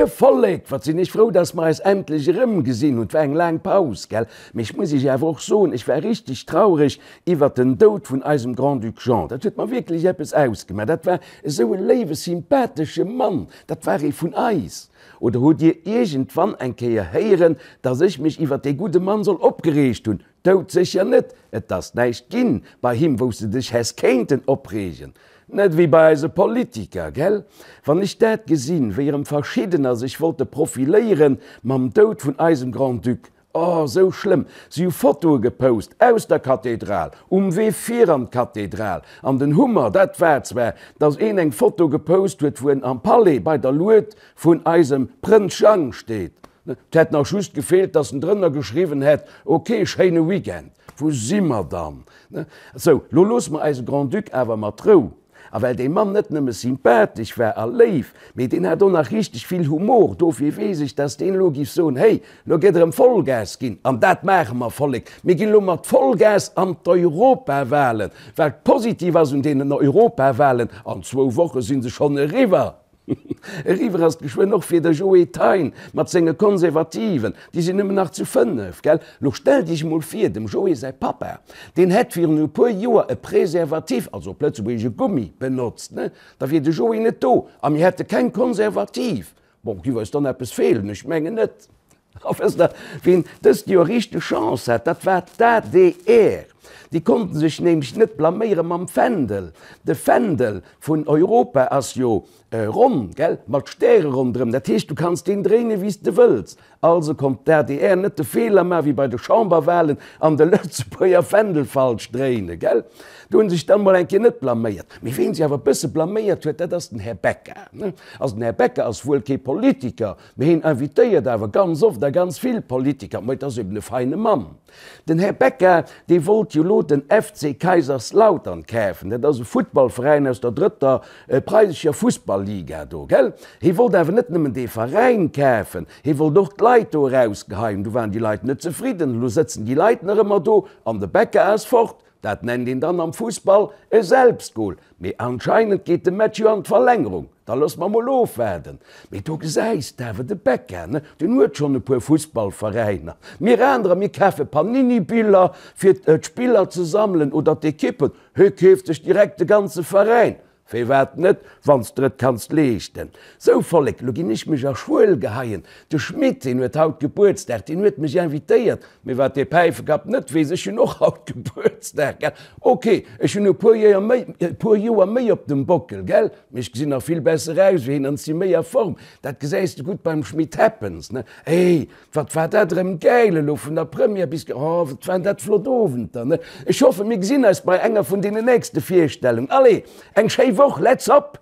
Moie Vollek, wat sinn ech frou, dass mer eis endlech erëmgesinn hunn. Et war eng laang Paus, gell? Mee ech muss iech awer och soen, ech war richteg traureg iwwert den Doud vun eisem Grand-Duc Jean. Dat huet mer wierklech eppes ausgemaach. Dat war esou e léiwe, sympathesche Mann. Dat war ee vun eis. Oder hutt dir iergendwann eng Kéier héieren, dass ech mech iwwert dee gudde Mann soll opgereegt hunn? Doudsécher net! Et ass näischt ginn bei him, wou s de dech häss kéinten opreegen. Net ewéi bei eise Politiker, gell? Wann ech dat gesinn, wéi erëm verschiddener sech wollte profiléieren mam Doud vun eisem Grand-Duc. Oh, sou schlëmm! Si hu Fotoe gepost aus der Kathedral, um Wee fir an d'Kathedral. An den Hummer, dat war zwar, datt een eng Foto gepost huet, wou en am Palais bei der Lued vun eisem Prënz Jang steet. Et hätt nach just gefeelt, dass en drënner geschriwwen hätt, Ok, schéine Weekend. Wou si mer dann? Sou, lo loosse mer eise Grand-Duc awer mat Rou. A well dee Mann net nëmme sympathesch war a léif, mee deen hat och nach richteg vill Humor, dofir weess ech, dass deen elo giff soen, Hey, lo gëtt erëm Vollgas ginn. An dat maache mer, Vollek. Mir ginn elo mat Vollgas an d'Europawahlen. Wat positiv ass un deenen Europawahlen, an zwou Woche si se schonn eriwwer. Eriwwer ass et geschwënn och fir de Joe Thein mat senge Konservativen. Déi sinn nëmmen nach zu 5, gell? Lo stellt iech emol vir, dem Joe säi Pappa, deen hätt virun e puer Joer e Preservatif, also op Lëtzebuergesch e Gummi, benotzt, ne? Da wier de Joe net do a mir hätte keng Konservativ. Bon, giff eis dann eppes feelen? Ech mengen net. A wësst Der, wien dëst Joer richteg Chance hat? Dat war d'ADR. Déi konnten sech nämlech net blaméiere mam Fändel. De Fändel vun Europa ass jo ronn, gell, mat Stäre ronderëm. Dat heescht, du kanns deen dréinen, wéi s de wëlls. Also konnt d'ADR net de Feeler maachen, wéi bei de Chamberwahlen, an de Lëtzebuerger Fändel falsch dréinen, gell. Do hu sech dann mol eng Kéier net blaméiert. Mee ween sech awer e bësse blaméiert huet, dat ass den Här Becca. Also den Här Becca ass wuel kee Politiker, Mee hien invitéiert awer ganz oft a ganz vill Politiker. Mä et ass eben e feine Mann. Den Här Becca, dee wollt jo lo den FC Kaiserslautern kafen. Dat ass e Futtballveräin aus der drëtter preisescher Fussballliga do, gell? Hie wollt awer net nëmmen dee Veräin kafen, hie wollt och d'Leit do erausgeheien. Du waren déi Leit net zefridden. Elo sëtzen déi Leit nach ëmmer do an de Becca ass fort. Dat nennt een dann am Fussball e Selbstgol. Mee anscheinend geet de Match jo an d'Verlängerung. Da loosse mer mol ofwaarden. Mee do gesäis de awer de Becca, ne, deen huet schonn e puer Fussballveräiner. Mir anerer, mir kafe Panini-Biller fir d'Spiller ze sammelen oder d'Ekippen. Hie keeft sech direkt de ganze Veräin. Firwat net, wann s der et kanns leeschten. Sou, Vollek, lo ginn ech mech a Schuel geheien. De Schmit, deen huet haut Gebuertsdag, deen huet mech invitéiert. Mee wat dee Päifekapp net weess, ech hunn och haut Gebuertsdag, gell? Ok, ech hunn e puer Joer méi, e puer Joer méi op dem Bockel, gell? Mee ech gesinn nach vill besser aus wéi hien an si méi a Form. Dat gesäis de gutt beim Schmit Happens, ne? Ey, Wat war dat erëm gäil elo vun der Première bis, oh wat waren dat flott Owenter ne. Ech hoffen mir gesinn eis bei enger vun deenen nächste Virstellungen. Allez, eng schéi Woch, let's hop!